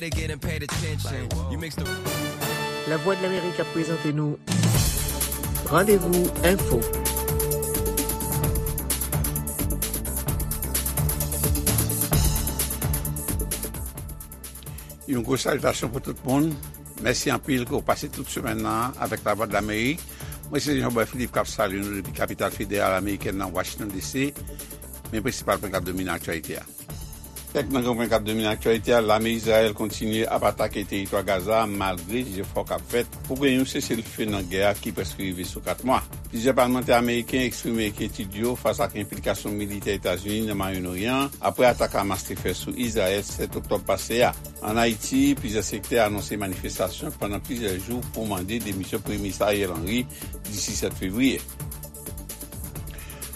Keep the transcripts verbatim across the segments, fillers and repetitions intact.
They getting paid attention. You mix the Lavwadlamerik ap prezante nou Randevou Enfo. Yon gwo salitasyon pou tout moun. Mèsi anpil ke w pase tout semèn nan avèk Lavwadlamerik. Mwen se Jean Boy Philippe k ap salye nou depi kapital federal amerikèn nan, Washington D C. Men prensipal pwen k ap domine aktyalite a. Kèk nan gran pwen k ap domine aktyalite a: lame Izrayèl kontinye ap atake teritwa Gaza malgre jefò k ap fèt pou gen yon seselfe nan gè a ki prèske rive sou kat mwa. Plizyè palmantè ameriken eksprime enkyetid yo fas ak enplikasyon militè Etazini nan Mwayen Oryan an apre atak Hamas te fè sou Izrayèl sèt oktòb pase a. Ann Ayiti, plizyè sektè anonse manifestasyon pandan plizyè jou pou mande demisyon Premye Minis Ariel Henry disi sèt fevriye.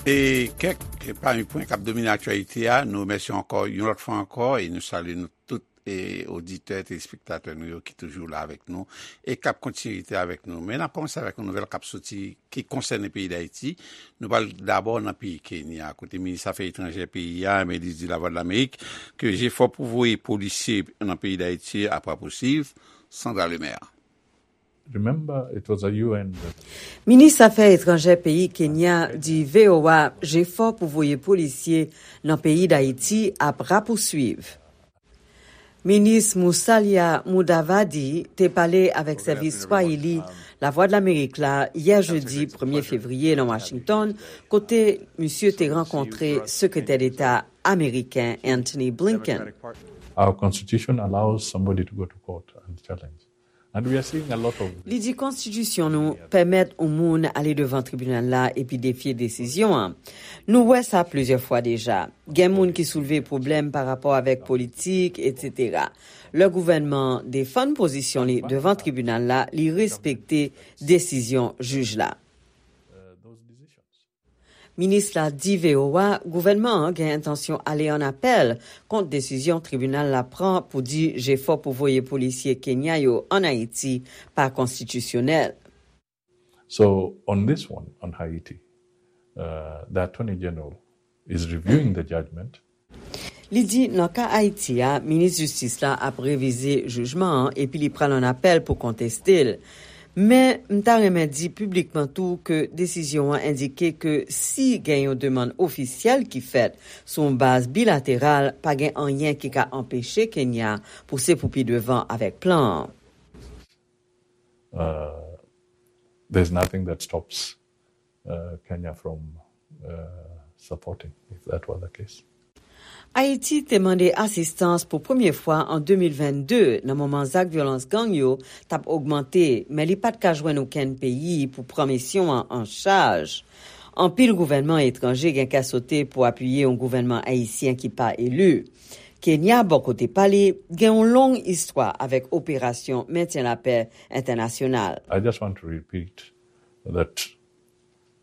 E kèk pami pwen k ap domine aktyalite a, nou remèsye ankò yon lòt fwa ankò e nou salye nou tout e oditè, telespektatè nou yo ki toujou la avèk nou e k ap kontinye rete avèk nou. Men n ap kòmanse avèk yon nouvèl k ap soti ki konsène peyi Dayiti. Nou pral dabò nan peyi Kenya, kote minis afè etranjè peyi a, Melise di Lavwadlamerik, ke jefò pou voye polisye nan peyi Dayiti ap rapousuiv. Sandra Lemaire. Remember, it was a U N. Minis afè etranjè peyi Kenya di V O A jefò pou voye polisye nan peyi Dayiti ap rapousuiv. Minis Musalia Mudavadi te pale avèk sèvis Swahili Lavwadlamerik la yè jedi premye fevriye nan Washington, kote misye te rankontre Sekretè Deta ameriken Antony Blinken. Our constitution allows somebody to go to court and challenge. And we are seeing a lot of Li di konstitisyon nou pèmèt yon moun ale devan tribinal la epi defye desizyon an. Nou wè sa plizyè fwa deja. Gen moun ki soulve pwoblèm pa rapò avèk politik, etsetera. Lè gouvènman an defann pozisyon li devan tribinal la, li respekte desizyon jij la. Minis la di V O A gouvènman an gen entansyon ale an apèl kont desizyon tribinal la pran pou di jefò pou voye polisye Kenya yo ann Ayiti pa konstitisyonèl. So on this one, on Haiti, uh, the Attorney General is reviewing the judgment. Li di nan ka Ayiti a, minis jistis la ap revize jijman an epi li pral an apèl pou konteste l. Men, m ta renmen di piblikman tou ke desizyon an endike ke si gen yon demann ofisyèl ki fèt sou yon baz bilateral, pa gen anyen ki ka anpeche Kenya pouse pou pi devan avèk plan an. Uh, there's nothing that stops uh, Kenya from uh, supporting, if that were the case. Ayiti te mande asistans pou premye fwa an de mil vennde nan moman zak vyolans gang yo t ap ogmante, men li pa t ka jwenn okenn peyi pou pran misyon an an chaj. Anpil gouvènman etranje gen kè sote pou apiye yon gouvènman ayisyen ki pa eli. Kenya, bò kote pa li, gen yon long istwa avèk operasyon mentyen lapè entènasyonal. I just want to repeat that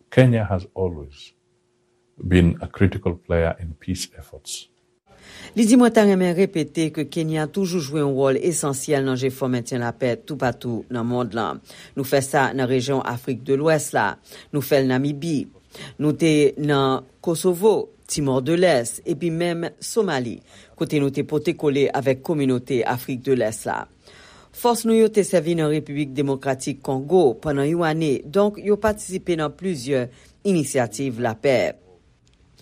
Kenya has always been a critical player in peace efforts. Li di mwen ta renmen repete ke Kenya toujou jwe yon wòl esansyèl nan jefò mentyen lapè toupatou nan mond lan. Nou fè sa nan rejyon Afrik de Lwès la. Nou fè l Namibi. Nou te nan Kosovo, Timor de Lès, epi menm Somali, kote nou te pote kole avèk kominote Afrik de Lès la. Fòs nou yo te sèvi nan Repiblik Demokratik Kongo pandan yon ane, donk yo patisipe nan plizyè inisyativ lapè.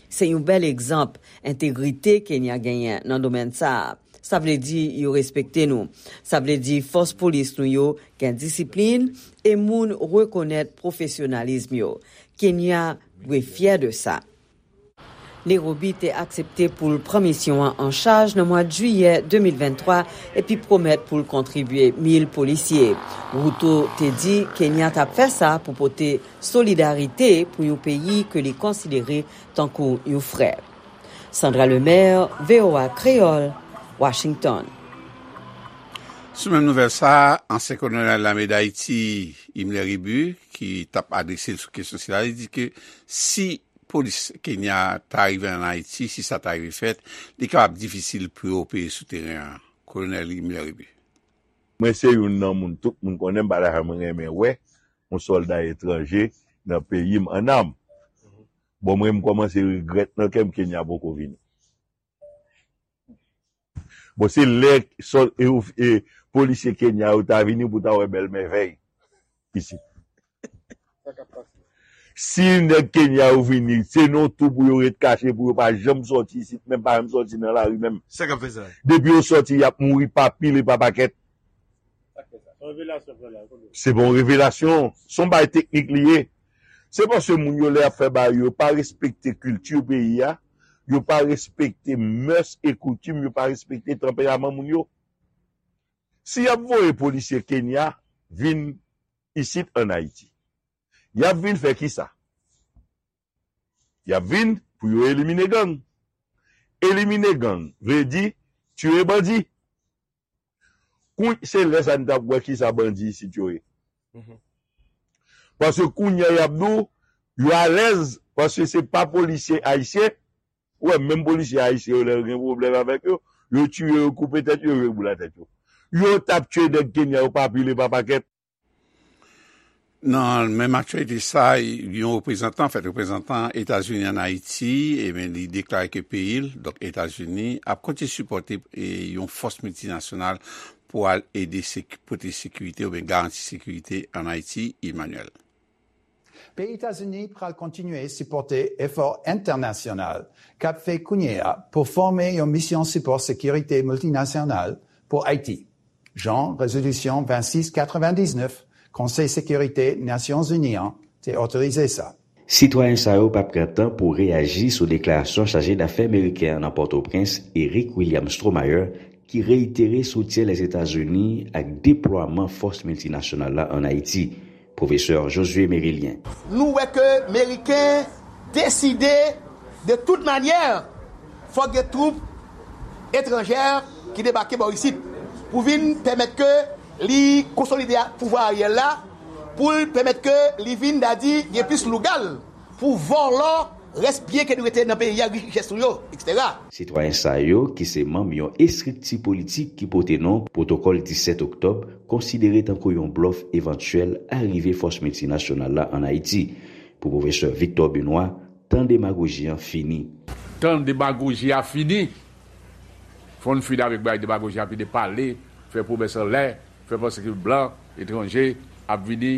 Se yon bèl egzanp entegrite Kenya genyen nan domèn sa a. Sa vle di yo respekte nou. Sa vle di fòs polis nou yo gen disiplin e moun rekonèt pwofesyonalism yo. Kenya dwe fyè de sa. Nairobi te aksepte pou l pran misyon an an chaj nan mwa jiyè de mil venntwa epi pwomèt pou l kontribye mil polisye. Ruto te di Kenya t ap fè sa pou pote solidarite pou yon peyi ke li konsidere tankou yon frè. Sandra Lemaire, V O A Kreyòl, Washington. Sou menm nouvèl sa a, ansyen kolonèl lame Dayiti, Himmler Rebu, ki t ap adrese l sou kesyon sila, li di ke si polis Kenya ta rive ann Ayiti, si sa ta rive fèt, li kapab difisil pou yo opere sou teren an. Kolonèl Himmler Rebu. Mwen se youn nan moun tout moun konnen m pa ta janm renmen wè yon sòlda etranje nan peyi m an nam. Bon, mwen m kòmanse regrèt nan kè m Kenya poko vini. Bon, se lè sò- e, e, polisye Kenya yo ta vini pou ta wè bèl mèvèy isit. Si nèg Kenya yo vini, se nan tou pou yo ret kache, pou yo pa janm sòti isit, menm pa janm sòti nan lari menm. Sa k ap fè sa? Depi yo sòti, y ap mouri pa pil e pa pakèt. Se pa yon revelasyon, se yon bagay teknik li ye. Se paske moun yo lè y ap fè bagay yo, yo pa respekte kilti peyi a, yo pa respekte mès e koutim, yo pa respekte tanperaman moun yo. Si y ap voye polisye Kenya vin isit ann Ayiti, y ap vin fè kisa? Y ap vin pou yo elimine gang. Elimine gang vle di tiye bandi. Kou- se lè sa n t ap wè kisa bandi isit yo ye. Paske kounye a y ap di w, yo alèz, paske se pa polisye ayisyen. Ou wè, menm polisye ayisyen yo, lè yo gen pwoblèm avèk yo, yo tiye yo, koupe tèt yo, yo boule tèt yo. Yo t ap tiye nèg Kenya yo pa pil e pa pakèt. Nan menm aktyalite sa, yon reprezantan, fèt reprezantan Etazini ann Ayiti, ebyen, li deklare ke peyi l, donk Etazini, ap kontinye sipòte, e, yon fòs miltinasyonal pou al ede sek- pote sekirite oubyen garanti sekirite ann Ayiti, Emmanuel. Peyi Etazini pral kontinye sipòte efò entènasyonal k ap fè kounye a pou fòme yon misyon sipò sekirite miltinasyonal pou Ayiti, jan rezolisyon vennsis katrevendiznèf Konsèy Sekirite Nasyonzini an te otorize sa. Sitwayen sa yo p ap pran tan pou reyaji sou deklarasyon chaje dafè meriken an nan Pòtoprens, Eric William Stromayer, ki reyitere soutyen Lèzetazini ak deplwaman fòs miltinasyonal la ann Ayiti. Pwofesè Josué Mérilien. Nou wè ke Meriken deside, de tout manyè, fòk gen twoup etranjè ki debake bò isit pou vin pèmèt ke li konsolide pouvwa Ariel la, pou l pèmèt ke li vin, dadi, gen plis lougal pou vòlò rès byen ke nou rete nan peyi a, richès nou yo, etsetera. Sitwayen sa yo, ki se manm yon estrikti politik ki pote non Pwotokòl disèt Oktòb, konsidere tankou yon blòf evantyèl arive fòs miltinasyonal la ann Ayiti. Pou pwofesè Victor Benoît, tan demagoji an fini. Tan demagoji a fini. Fò n fini avèk bagay demagoji a, fini pale, fè pwomès anlè, fè panse ke blan, etranje, ap vini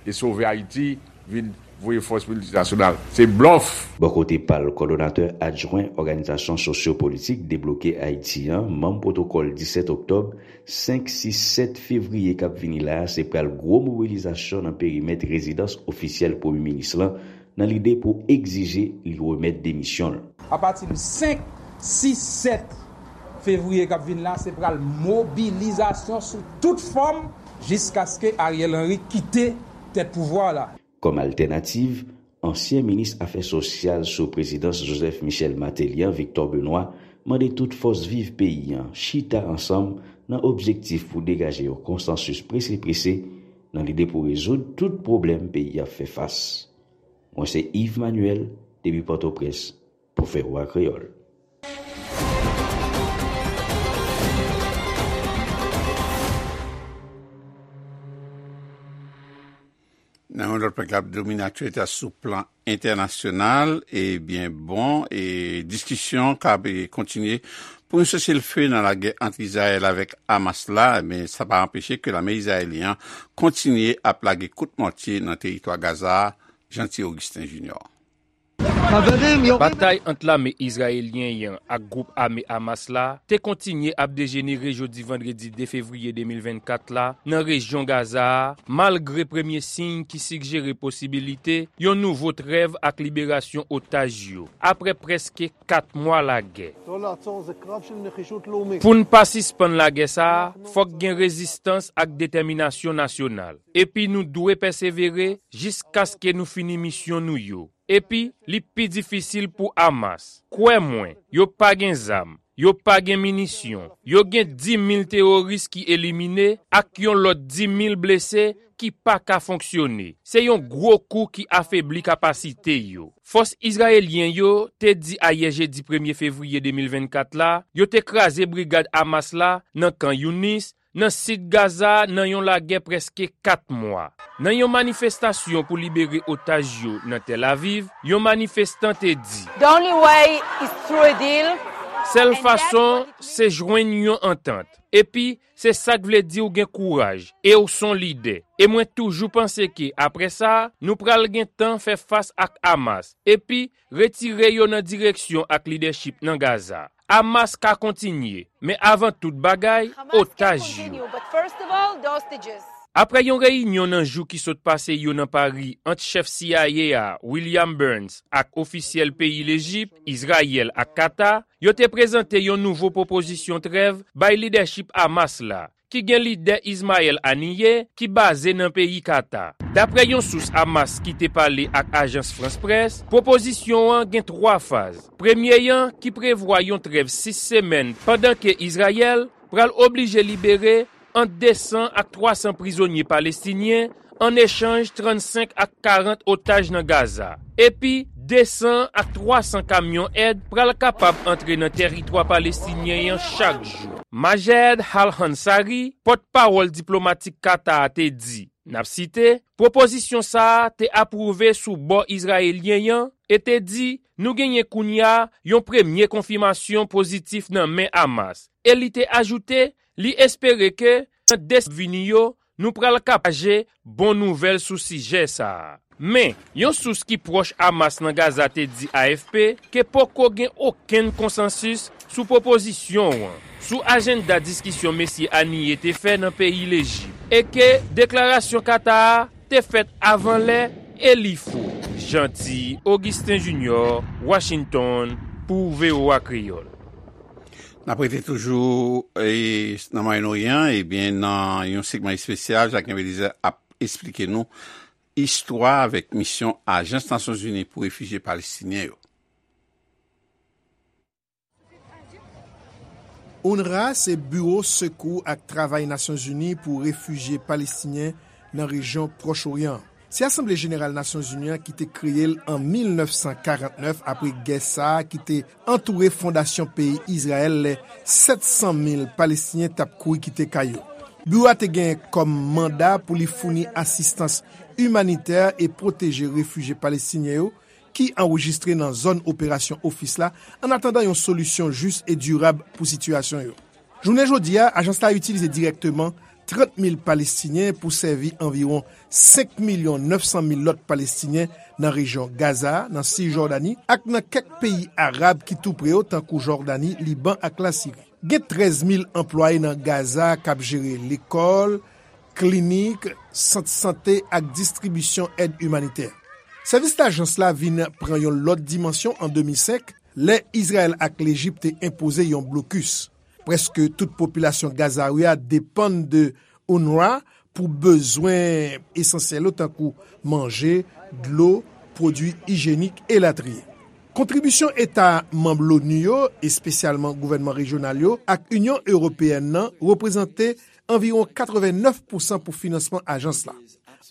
e sove Ayiti, vin voye fòs miltinasyonal. Se blòf! Bò kote pa l, kòdonatè adjwen òganizasyon sosyo-politik Debloke Ayiti an, manm pwotokòl disèt oktòb, senk, sis, sèt fevriye k ap vini la a, se pral gwo mobilizasyon nan perimèt rezidans ofisyèl premye minis lan, nan lide pou egzije li remèt demisyon l. Apati de senk, sis, sèt fevriye k ap vin la, se pral mobilizasyon sou tout fòm jiskaske Ariel Henry kite tèt pouvwa la. Kòm altènativ, ansyen minis afè sosyal sou prezidans Joseph Michel Martelly an, Victor Benoît, mande tout fòs viv peyi an chita ansanm nan objektif pou degaje yon konsansis prese prese nan lide pou rezoud tout pwoblèm peyi a ap fè fas. Mwen se Yves Manuel, depi Pòtoprens, pou V O A Kreyòl. Nan yon lòt pwen k ap domine aktyalite a sou plan entènasyonal, ebyen, bon, e diskisyon k ap, e, kontinye pou yon seselfe nan lagè ant Izrayèl avèk Hamas la, men sa pa anpeche ke lame izrayelyen an kontinye ap lage kout mòtye nan teritwa Gaza a, Jeanty Augustin Junior. Batay ant lame izrayelyen an ak gwoup ame Hamas la te kontinye ap dejenere jodi vandredi de fevriye de mil vennkat la nan rejyon Gaza a, malgre premye siy ki sigjere posibilite yon nouvo trèv ak liberasyon otaj yo, apre prèske kat mwa lagè. Pou n pa sispann lagè sa a, fòk gen rezistans ak detèminasyon nasyonal. Epi nou dwe pèsevere jiskaske nou fini misyon nou yo. Epi, li pi difisil pou Hamas. Kwè mwen, yo pa gen zam, yo pa gen minisyon, yo gen dis mil teworis ki elimine ak yon lòt dis mil blese ki pa ka fonksyone. Se yon gwo kou ki afebli kapasite yo. Fòs izrayelyen yo te di ayè jedi premye fevriye de mil vennkat la, yo te kraze brigad Hamas la nan Kan Younis, nan sid Gaza a nan yon lagè prèske kat mwa. Nan yon manifestasyon pou libere otaj yo nan Tel Aviv, yon manifestan te di, The only way is through a deal. Sèl fason, se jwenn yon antant. Epi, se sa k vle di w gen kouraj, e w s on lidè. E mwen toujou panse ke, apre sa, nou pral gen tan fè fas ak Hamas, epi retire yo nan direksyon ak lidèchip nan Gaza. Hamas ka kontinye, men avan tout bagay, otaj yo. Apre yon reyinyon nan jou ki sot pase yo nan Pari ant chèf C I A a, William Burns, ak ofisyèl peyi Lejip, Izrayèl ak Kata, yo te prezante yon nouvo pwopozisyon trèv bay lidèchip Hamas la, ki gen lidè Ismaël Haniyeh, ki baze nan peyi Kata. Dapre yon sous Hamas ki te pale ak ajans France Presse, pwopozisyon an gen twa faz. Premye an, ki prevwa yon trèv sis semèn, pandan ke Izrayèl pral oblije libere ant de san ak twa san prizonye palestinyen, an echanj trannsenk ak karant otaj nan Gaza. Epi, de san ak twa san kamyon èd pral kapab antre nan tèritwa palestinyen an chak jou. Majed Al-Ansari, pòtpawòl diplomatik Kata a, te di, n ap site, pwopozisyon sa a te apwouve sou bò izrayelyen an e te di, nou genyen kounye a yon premye konfimasyon pozitif nan men Hamas. E li te ajoute, li espere ke nan de semèn vini yo, nou pral ka pataje bon nouvèl sou sijè sa a. Men, yon sous ki pwòch Hamas nan Gaza te di A F P ke poko gen okenn konsansis sou pwopozisyon an, sou ajanda diskisyon mesye Haniyeh te fè nan peyi Lejip, e ke deklarasyon Kata a te fèt avan lè e li fo. Jeanty Augustin Junior, Washington, pou V O A Kreyòl. N ap rete toujou, e, nan Mwayen Oryan, ebyen, nan yon segman espesyal, Jacquelin Belizaire ap esplike nou istwa avèk misyon Ajans Nasyonzini pou Refijye Palestinyen yo. UNRWA se Biwo Sekou ak Travay Nasyonzini pou Refijye Palestinyen nan rejyon Pwòch Oryan an. Se Asanble Jeneral Nasyonzini an ki te kreye l an mil nèf san karant nèf apre gè sa a ki te antoure fondasyon peyi Izrayèl lè sèt san mil Palestinyen t ap kouri kite kay yo. Biwo a te gen kòm manda pou li founi asistans imanitè e pwoteje refijye palestinyen yo ki anrejistre nan zòn operasyon ofis la, annatandan yon solisyon jis e dirab pou sitiyasyon yo. Jounen jodi a, ajans la itilize dirèkteman trant mil Palestinyen pou sèvi anviwon senk milyon nèf san mil lòt Palestinyen nan rejyon Gaza, nan Sijòdani ak nan kèk peyi arab ki tou pre yo, tankou Jòdani, Liban ak Lasiri. Gen trèz mil anplwaye nan Gaza k ap jere lekòl, klinik, sant sante ak distribisyon èd imanitè. Sèvis lajans la vin pran yon lòt dimansyon an de mil senk, lè Izrayèl ak Lejip te enpoze yon blokis. Prèske tout popilasyon Gazawi a depann de UNRWA pou bezwen esansyèl yo tankou manje, dlo, pwodui ijyenik, elatriye. Kontribisyon eta manm l'ONU yo, espesyalman gouvènman rejyonal yo, ak Inyon Ewopeyèn nan, reprezante anviwon katrevennèf pousan pou finansman ajans la.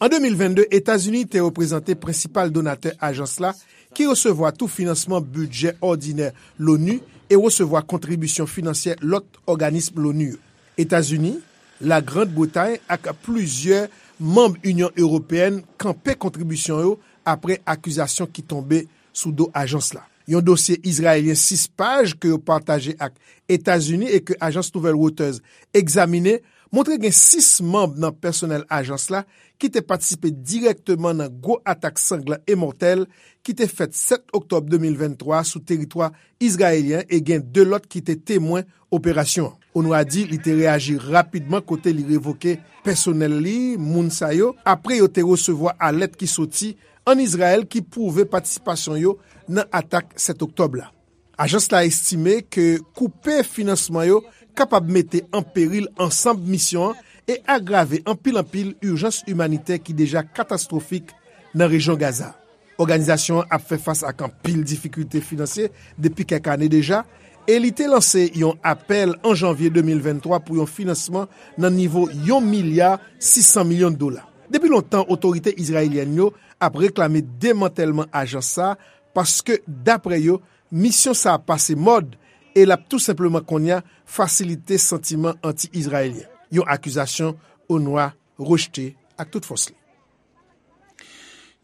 An de mil vennde, Etazini te reprezante prensipal donatè ajans la, ki resevwa tou finansman bidjè òdinè l'ONU e resevwa kontribisyon finansyè lòt òganis l'ONU yo. Etazini, Lagrand Bretay ak plizyè manm Inyon Ewopeyèn kanpe kontribisyon yo apre akizasyon ki tonbe sou do ajans la. Yon dosye izrayelyen sis paj ke yo pataje ak Etazini e ke ajans nouvèl Reuters egzamine montre gen sis manm nan pèsonèl ajans la ki te patisipe dirèkteman nan gwo atak sanglan e mòtèl ki te fèt sèt oktòb de mil venntwa sou teritwa izrayelyen e gen de lòt ki te temwen operasyon an. UNRWA di li te reyaji rapidman kote li revoke pèsonèl li, moun sa yo, apre yo te resevwa alèt ki soti ann Izrayèl ki pwouve patisipasyon yo nan atak sèt oktòb la. Ajans la estime ke koupe finansman yo kapab mete an peril ansanm misyon an e agrave anpil anpil ijans imanitè ki deja katastwofik nan rejyon Gaza. Òganizasyon an ap fè fas ak anpil difikilte finansye depi kèk ane deja, e li te lanse yon apèl an janvye de mil venntwa pou yon finansman nan nivo yon milya sis san milyon dola. Depi lontan, otorite izrayelyèn yo ap reklame demantèlman ajans sa a, paske, dapre yo, misyon sa a pase mòd e l ap tou senpleman kounye a fasilite santiman anti-izrayelyen, yon akizasyon UNRWA rejte ak tout fòs li.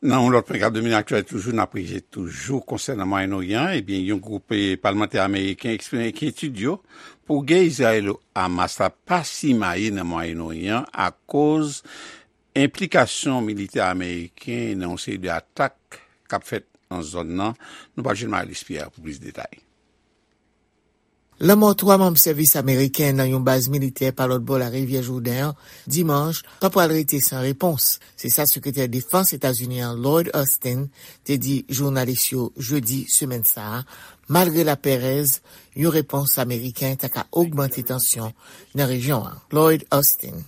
Nan yon lòt pwen k ap domine aktyalite toujou, n ap rete toujou konsènan Mwayen Oryan, ebyen, yon gwoup, eh, palmantè ameriken eksprime enkyetid yo pou gè Izrayelo-Hamas la pa simaye nan Mwayen Oryan akoz enplikasyon militè ameriken nan yon seri de atak k ap fèt nan zòn nan. Nou pral jwenn Marie-Luce Pierre pou plis detay. Lanmò twa manm sèvis ameriken nan yon baz militè pa lòt bò larivyè Jouden an, dimanch, pa pral rete san repons. Se sa sekretè defans Etazini an, Lloyd Austin, te di jounalis yo jedi semèn sa a, malgre laperèz, yon repons ameriken ta ka ogmante tansyon nan rejyon an. Lloyd Austin.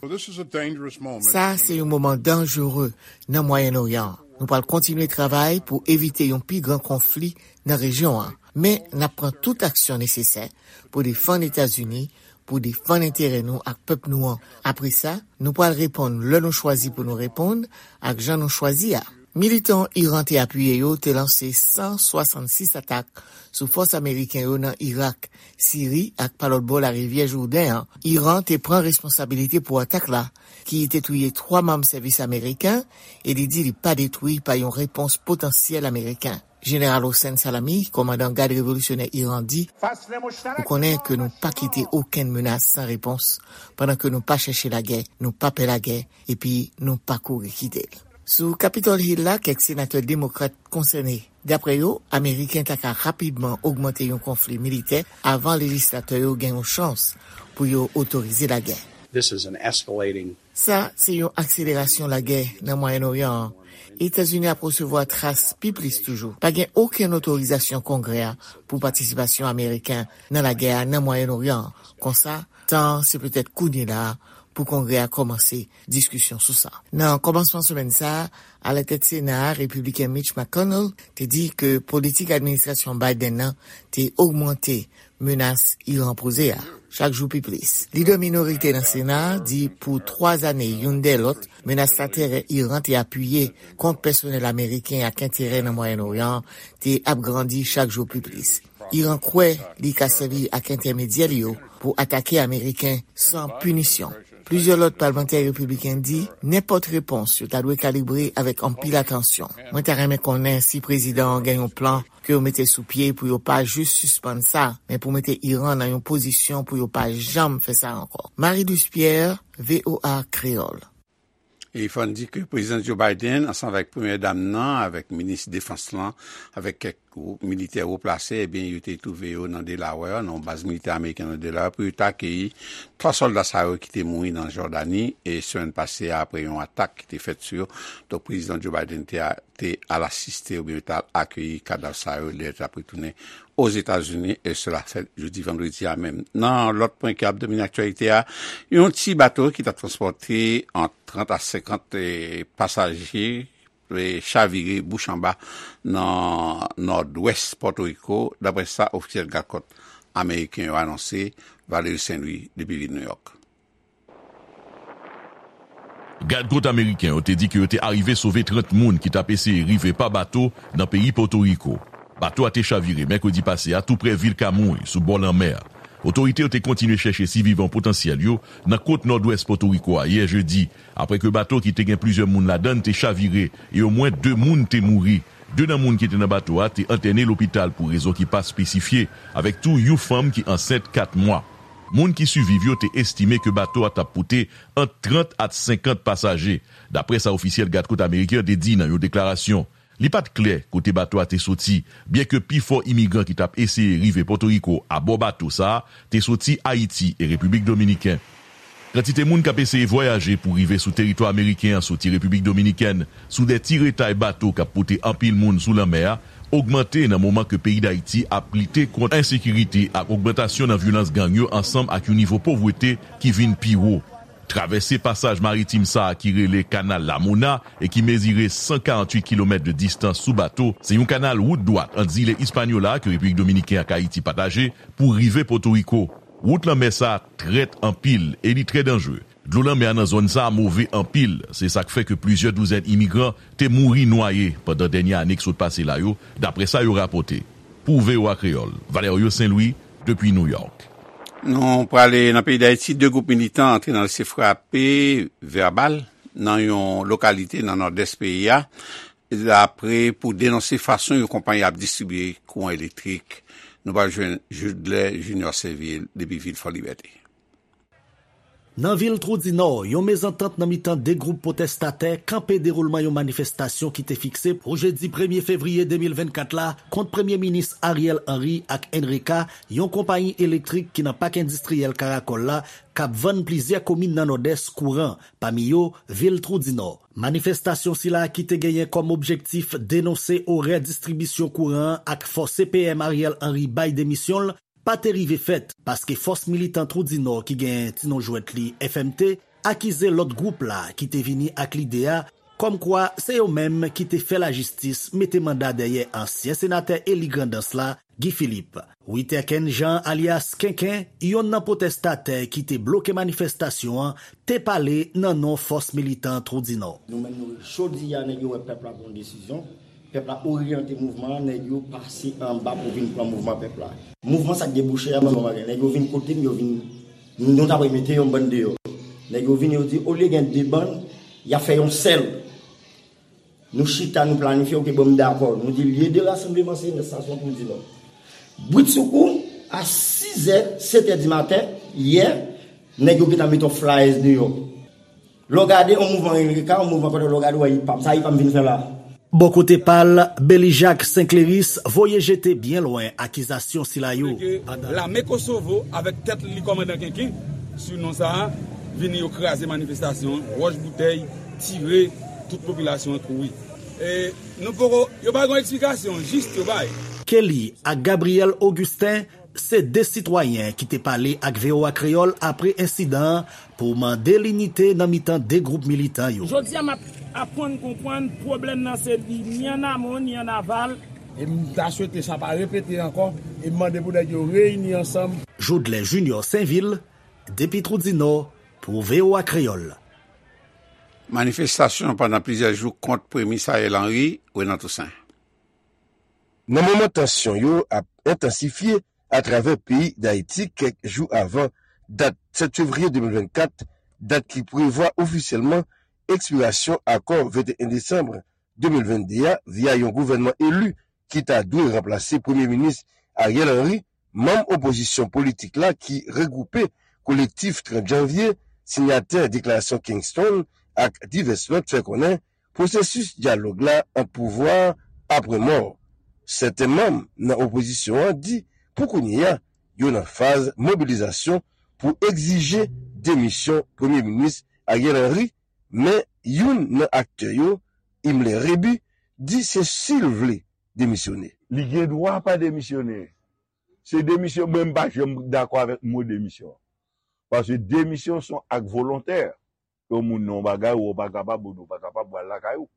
Sa se yon moman danjere nan Mwayen Oryan an. Nou pral kontinye travay pou evite yon pi gran konfli nan rejyon an, men n ap pran tout aksyon nesesè pou defann Etazini, pou defann enterè nou ak pèp nou an. Apre sa, nou pral reponn lè nou chwazi pou nou reponn ak jan nou chwazi a. Militan Iran te apiye yo te lanse san swasannsis atak sou fòs ameriken yo nan Irak, Siri ak pa lòt bò larivyè Jouden an. Iran te pran responsabilite pou atak la, ki te touye twa manm sèvis ameriken, e li di li pa detwi pa yon repons potansyèl ameriken. Jeneral Hossein Salami, kòmandan Gad Revolisyonè Iran, di, nou konnen ke nou pa kite okenn menas san repons, pandan ke nou pa chèche lagè, nou pa pè lagè, epi nou pa kouri kite l. Sou Capitol Hill la, kèk senatè demokrat konsène. Daprè yo, Ameriken ta ka rapidman ogmante yon konfli militè avan lejislatè yo gen yon chans pou yo otorize lagè. This is an escalating Sa se yon akselerasyon lagè nan Mwayen Oryan an. Etazini ap resevwa tras pi plis toujou. Pa gen okenn otorizasyon Kongrè a pou patisipasyon ameriken nan lagè a nan Mwayen Oryan an. Konsa, tan an se petèt kounye la a pou Kongrè a kòmanse diskisyon sou sa. Nan kòmansman semèn sa a, alatèt Sena a, Repibliken Mitch McConnell te di ke politik administrasyon Biden nan te ogmante menas Iran poze a chak jou pi plis. Lidè minorite nan Sena a di pou twa zane youn dèyè lòt, menas laterè Iran te apiye kont pèsonèl ameriken ak enterè nan Mwayen Oryan an te ap grandi chak jou pi plis. Iran kwè li ka sèvi ak entèmedyè li yo pou atake Ameriken san pinisyon. Plizyè lòt palmantè repibliken di nenpòt repons yo ta dwe kalibre avèk anpil atansyon. Mwen ta renmen konnen si prezidan an gen yon plan ke yo mete sou pye pou yo pa jis sispann sa, men pou mete Iran nan yon pozisyon pou yo pa janm fè sa ankò. Marie-Luce Pierre, V O A Kreyòl. E fò n di ke Prezidan Joe Biden, ansanm avèk Premyè Dam nan, avèk minis defans lan, avèk kèk gwoup militè wo plase, ebyen, yo te twouve yo nan Delaware, nan yon baz militè ameriken nan Delaware, pou yo te akeyi twa sòlda sa yo ki te mouri nan Jòdani, e semèn pase a, apre yon atak ki te fèt sou yo. Donk, Prezidan Joe Biden te a te al asiste oubyen yo t al akeyi kadav sa yo lè yo t ap retounen Ozetazini, e sela fèt jodi vandredi a menm. Nan lòt pwen ki ap domine aktyalite a, yon ti bato ki t ap transpòte ant trant a senkant, e, pasaje, e, chavire bouch anba nan nòdwès Pòtoriko, daprè sa ofisyèl gadkòt ameriken yo anonse. Valery Saint Louis depi vil Nouyòk. Gadkòt ameriken yo te di ke yo te arive sove trant moun ki t ap eseye rive pa bato nan peyi Pòtoriko. Bato a te chavire mèkredi pase a tou prè vil Kamouy, sou bò lanmè a. Otorite yo te kontinye chèche sivivan potansyèl yo nan kot nòdwès Pòtoriko a yè jedi, apre ke bato ki te gen plizyè moun ladan l te chavire e omwen de moun te mouri. De nan moun ki te nan bato a te entène lopital pou rezon ki pa espesifye, avèk tou yon fanm ki ansent kat mwa. Moun ki siviv yo te estime ke bato a t ap pote ant trant a senkant pasaje, daprè sa ofisyèl gadkòt ameriken an te di nan yon deklarasyon. Li pa t klè kote bato a te soti, byenke pifò imigran ki t ap eseye rive Pòtoriko abò bato sa a te soti Ayiti e Repiblik Dominiken. Kantite moun k ap eseye vwayaje pou rive sou teritwa ameriken an soti Repiblik Dominikèn sou de ti retay bato k ap pote anpil moun sou lanmè a ogmante nan moman ke peyi Dayiti ap lite kont ensekirite ak ogmantasyon nan vyolans gang yo ansanm ak yon nivo povrete ki vin pi wo. Travèse pasaj maritim sa a ki rele Kanal Lamona e ki mezire san karanntuit kilomèt de distans sou bato, se yon kanal wout dwat ant zile Ispanyola ke Repiblik Dominikèn ak Ayiti pataje pou rive Pòtoriko. Wout lanmè sa a trèt anpil e li trè danjre. Dlo lanmè a nan zòn sa a move anpil, se sa k fè ke plizyè douzèn imigran te mouri nwaye pandan dènye ane k sot pase la yo, daprè sa yo rapòte. Pou V O A Kreyòl, Valerio Saint Louis, depi New York. Nou prale nan peyi Dayiti, de gwoup militan antre nan lese frape vèbal nan yon lokalite nan nòdès peyi a. la pre pou denonse fason yon konpayi ap distribye kouran elektrik. Nou pral jwenn Judlè Junior Seville depi vil Fò Libète. Nan vil Twou di Nò, yon mezantant nan mitan de gwoup pwotestatè kanpe dewoulman yon manifestasyon ki te fikse pou jedi premye fevriye de mil vennkat la kont Premye Minis Ariel Henry ak Enreka, yon konpayi elektrik ki nan pak endistriyèl Karakòl la, k ap vann plizyè komin nan Nòdès kouran, pami yo vil Twou di Nò. Manifestasyon sila ki te genyen kòm objektif denonse orè distribisyon kouran an ak fòse P M Ariel Henry bay demisyon l, pa te rive fèt, paske fòs militan Twou di Nò ki gen ti non jwèt li F M T akize lòt gwoup la ki te vini ak lide a, kòmkwa se yo menm ki te fè lajistis mete manda dèyè ansyen senatè eli Grandans la, Guy Philippe. Witerken Jean alyas Kenken, yonn nan pwotestatè ki te bloke manifestasyon an, te pale nan non fòs militan Twou di Nò. Nou menm nou, jodi a, nèg yo wè pèp la pran yon desizyon. Pèp la oryante mouvman an, nèg yo pase anba pou vin pran mouvman pèp la. Mouvman sa k debouche a, ban m yon bagay. Nèg yo vin kote m, yo vin, nou ta pral mete yon bann deyò. Nèg yo vin, yo di, olye gen de bann, y a fè yon sèl. Nou chita, nou planifye, oke, bon, m dakò. Nou di, lye de rasanbleman se nan estasyon Twou di Nò. Britsoukou, a sizè, setè di maten, yè, nèg yo gentan mete yon flyers deyò. Lè w gade yon mouvman Enreka, yon mouvman kote lè w gade, w wè, sa Ipam vin fè la. Bò kote pa l, Belijak Senkleris voye jete byen lwen akizasyon sila yo. Ke lame Kosovo avèk tèt li kòmandan Kenken, sou non sa a, vini yo kraze manifestasyon an, wòch boutèy, tire, tout popilasyon an kouri. E nou poko, yo pa gen eksplikasyon jis yo bay. Kelly ak Gabriel Augustin se de sitwayen ki te pale ak V O A Kreyòl apre ensidan an pou mande linite nan mitan de gwoup militan yo. Jodi a, m ap aprann konprann pwoblèm nan se li ni an amon, ni an aval. E m ta swete sa pa repete ankò, e m mande pou nèg yo reyini ansanm. Jodlè Junior Senvil, depi Twou di Nò, pou V O A Kreyòl. Manifestasyon pandan plizyè jou kont Premye Minis Ariel Henry, Renan Toussaint. Nan moman tansyon yo ap entansifye atravè peyi Dayiti kèk jou avan dat sèt fevriye de mil vennkat, dat ki prevwa ofisyèlman ekspirasyon akò venteyen desanm de mil vennde a via yon gouvènman eli ki ta dwe ranplase Premye Minis Ariel Henry, manm opozisyon politik la ki regwoupe Kolektif trant Janvye, sinyatè Deklarasyon Kingston ak divès lòt fè konnen pwosesis dyalòg la ant pouvwa a pran mò. Sèten manm nan opozisyon an di pou kounye a, yo nan faz mobilizasyon pou egzije demisyon Premye Minis Ariel Henry, men youn nan aktè yo, Himmler Rébu, di se si l vle demisyone. Li gen dwa pa demisyone. Se demisyon, mwen m pa janm dakò avèk mo demisyon. Paske demisyon se yon ak volontè. Ke yon moun nan yon bagay, ou pa kapab, ou pa kapab, ou al lakay ou.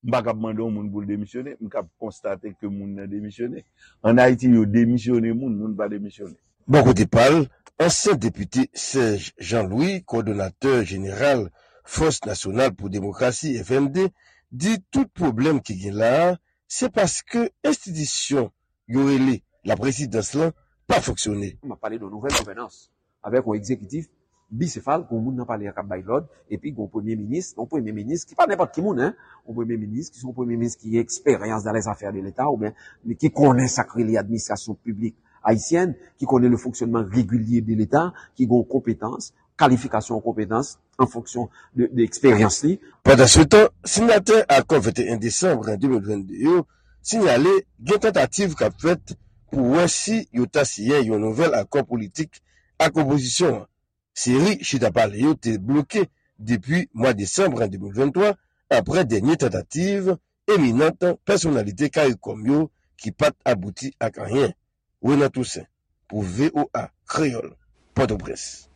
M pa kab mande yon moun pou l demisyone, m kab konstate ke moun nan demisyone. Ann Ayiti, yo demisyone moun, moun pa demisyone. Bò kote pa l, ansyen depite Serge Jean Louis, kowòdonatè jeneral Fòs Nasyonal pou Demokrasi, F N D, di tout pwoblèm ki gen la a, se paske enstitisyon yo rele laprezidans lan pa fonksyone. M ap pale de yon nouvèl gouvènans avèk yon egzekitif bisefal, gen yon moun nan palè a k ap bay lòd, epi gen yon premye minis, yon premye minis ki pa nenpòt ki moun, en, yon premye minis ki se yon premye minis ki gen eksperyans dans les affaires de l'État, oubyen ki konnen sa k rele administrasyon piblik ayisyèn, ki konnen le fonctionnement régulier de l'État, ki gen yon konpetans, kalifikasyon an konpetans an fonksyon de, de eksperyans li. Pandansetan, sinyatè akò venteyen desanm de mil vennde yo sinyale gen tantativ k ap fèt pou wè si yo ta siyen yon nouvèl akò politik ak opozisyon an. Seri chita pale yo te bloke depi mwa desanm de mil venntwa, apre dènye tantativ eminant pèsonalite CARICOM yo ki pa t abouti ak anyen. Renan Toussaint, pou V O A Kreyòl, Pòtoprens.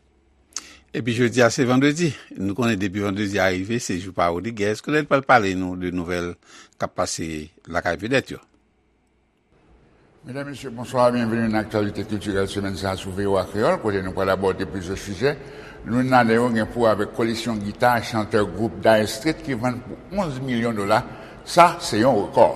Epi jodi a, se vandredi. Nou konnen depi vandredi a rive, se jou pa Rodriguez. Kounye a, l pral pale nou de nouvèl k ap pase lakay vedèt yo. Medam, mesye, bonswa, byenveni nan aktyalite kiltirèl semèn sa a sou V O A Kreyòl, kote nou pral abòde plizyè sijè. Youn ladan yo gen pou wè avèk koleksyon gita chantè gwoup Dire Straits ki vann pou onz milyon dola. Sa, se yon rekò.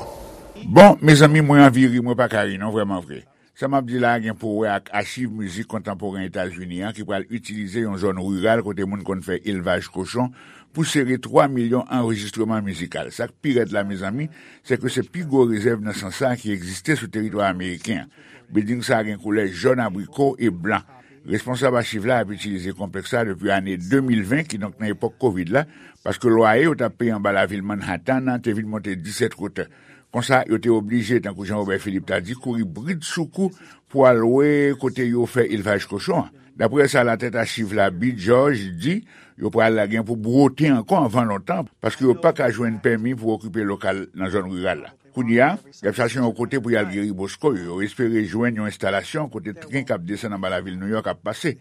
Bon, mezanmi, mwen anvi ri, mwen pa ka ri non, vrèman vre. Sa m ap di la a gen pou wè ak achiv mizik kontanporen Etazini an ki pral itilize yon zòn riral kote moun konn fè elvaj kochon pou sere twa milyon anrejistreman mizikal. Sa k pi rèd la, mezanmi, se ke se pi gwo rezèv nan sans sa a ki egziste sou teritwa ameriken an. Bilding sa a gen koulè jòn abriko e blan. Responsab achiv la ap itilize konplèks la depi ane de mil ven, kidonk nan epòk kovid la, paske lwaye yo t ap peye anba lavil Manhattan an te vin monte disèt wotè. Konsa, yo te oblije, tankou Jean Robert Philippe ta di, kouri brid sou kou pou al lwe kote yo fè elvaj kochon an. Daprè sa latèt achiv la, Bill George, di, yo pral gen pou bwote ankò anvan lontan, paske yo pa ka jwenn pèmi pou okipe lokal nan zòn riral la. Kounye a, y ap chache yon kote pou y al geri bosko yo. Yo espere jwenn yon enstalasyon kote tren k ap desann anba lavil Nouyòk ap pase.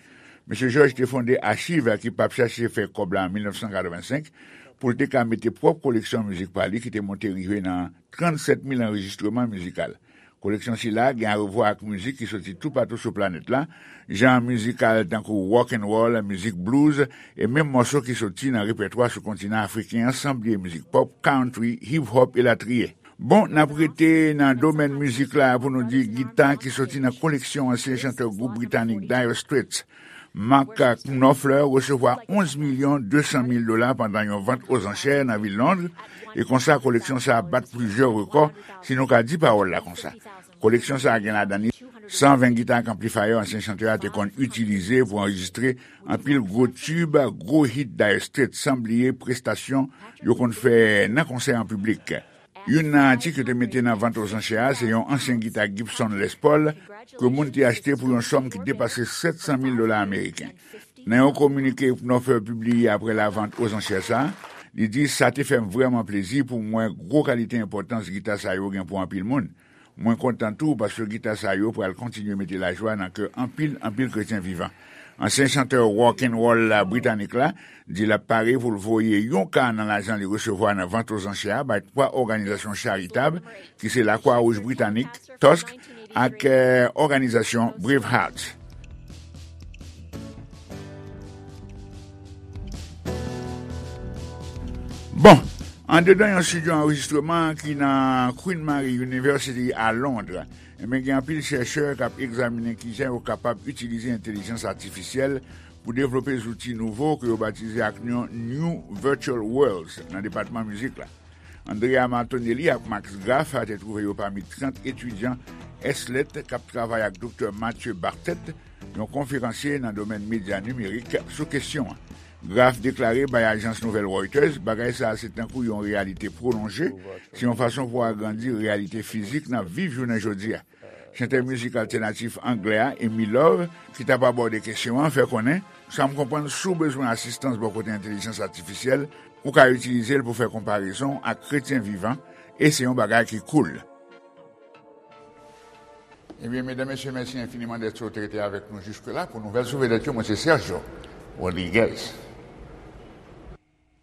Mesye George te fonde achiv ki p ap chache fè kòb la an mil nèf san katrevensenk pou l te ka mete pwòp koleksyon mizik pa li ki te monte rive nan trannsèt mil anrejistreman mizikal. Koleksyon sila gen arevwa ak mizik ki soti toupatou sou planèt la, jan mizikal tankou rock and roll, mizik blues, e menm mòso ki soti nan repètwa sou kontinan afriken an, san bliye mizik pòp, country, hip hop, elatriye. Bon, n ap rete nan domèn mizik la pou nou di gita ki soti nan koleksyon ansyen chantè gwoup britanik Dire Straits, Mark Knopfler, resevwa onz milyon de san mil dola pandan yon vant ozanchè nan vil Londres, e konsa koleksyon sa a bat plizyè rekò, si nou ka di pawòl la konsa. Koleksyon sa a gen ladan li san ven gita ak anplifayè ansyen chantè a te konn itilize pou anrejistre anpil gwo tib, gwo hit Dire Straits, san bliye prestasyon yo konn fè nan konsè an piblik. Youn nan atik yo te mete nan vant ozanchè a se yon ansyen gita Gibson Les Paul ke moun te achte pou yon sòm ki depase sèt san mil dola ameriken. Nan yon kominike Knopfler pibliye apre lavant ozanchè sa a, li di, "Sa te fè m vrèman plezi pou m wè gwo kalite enpòtans gita sa yo gen pou anpil moun. Mwen kontan tou paske gita sa yo pral kontinye mete lajwa nan kè anpil, anpil kretyen vivan." Ansyen chantè rock and roll la britanik la di l ap pare pou l voye yon ka nan lajan li resevwa nan vant ozanchè a bay twa òganizasyon charitab ki se Lakwa Wouj Britanik, Tusk, ak, eh, òganizasyon Bravehearts. Bon, andedan yon estidyo anrejistreman ki nan Queen Mary University a Londres, enben, gen anpil chèchè k ap egzaminen kijan yo kapab itilize entèlijans atifisyèl pou devlope zouti nouvo ke yo batize ak non New Virtual Worlds nan depatman mizik la. Andrea Martonelli ak Max Graf te twouve yo pami trant etidyan S L E T k ap travay ak Doktè Mathieu Bartet, yon konferansye nan domèn medya nimerik, sou kesyon an. Graf deklare bay ajans nouvèl Reuters, bagay sa a se tankou yon reyalite pwolonje, se yon fason pou agrandi reyalite fizik n ap viv jounen jodi a. Chantè mizik altènatif anglè a, Amy Love, ki t ap abòde kesyon an, fè konnen, "Sa m konprann, si w bezwen asistans bò kote entèlijans atifisyèl, ou ka itilize l pou fè konparezon ak kretyen vivan, e se yon bagay ki cool." Ebyen, medam, mesye, mèsi enfiniman dèske w te rete avèk nou jiske la. Pou nouvèl sou vedèt yo, mwen se Sergio Rodriguez.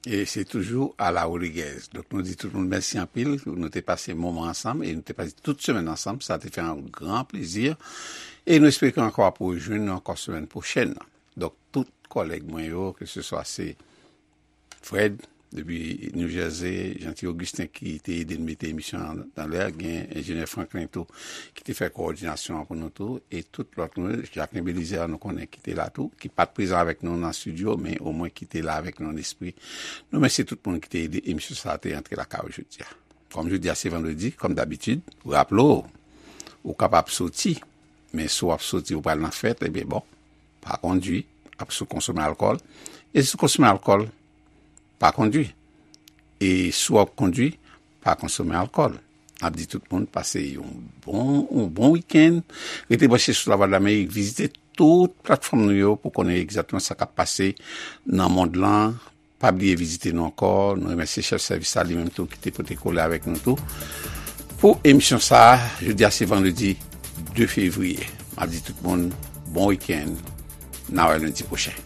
E se toujou Ala Rodriguez. Donk, nou di tout moun mèsi anpil. Nou te pase moman ansanm e nou te pase tout semèn ansanm. Sa te fè yon gran plezi. E nou espere ke ankò w ap rejwenn nou ankò semèn pwochèn. Donk, tout kòlèg mwen yo, ke se swa se Fred, depi New Jersey, Jeanty Augustin ki te ede n mete emisyon an anlè, gen enjenyè Franklin tou ki te fè kowòdinasyon an pou nou tou, e tout lòt nou, Jacquelin Belizaire nou konnen ki te la tou, ki pa t prezan avèk nou nan estidyo, men omwen ki te la avèk nou an espri. Nou mèsi tout moun ki te ede emisyon sa a te antre lakay ou jodi a. Kòm jodi a se vandredi, kòm dabitid, raple w, ou kapab soti, men si w ap soti, ou pral nan fèt, ebyen bon, pa kondwi, ap sou konsome alkòl. E si w konsome alkòl, pa kondwi. E si w ap kondwi, pa konsome alkòl. N ap di tout moun pase yon bon, yon bon wikenn. Rete branche sou Lavwadlamerik, vizite tout platfòm nou yo pou konnen egzakteman sa k ap pase nan mond lan. Pa bliye vizite nou ankò. Nou remèsye chèf sèvis la, li menm tou, ki te pote kole avèk nou tou. Pou emisyon sa a, jodi a se vandredi de fevriye. M ap di tout moun, bon wikenn. N a wè lendi pwochen.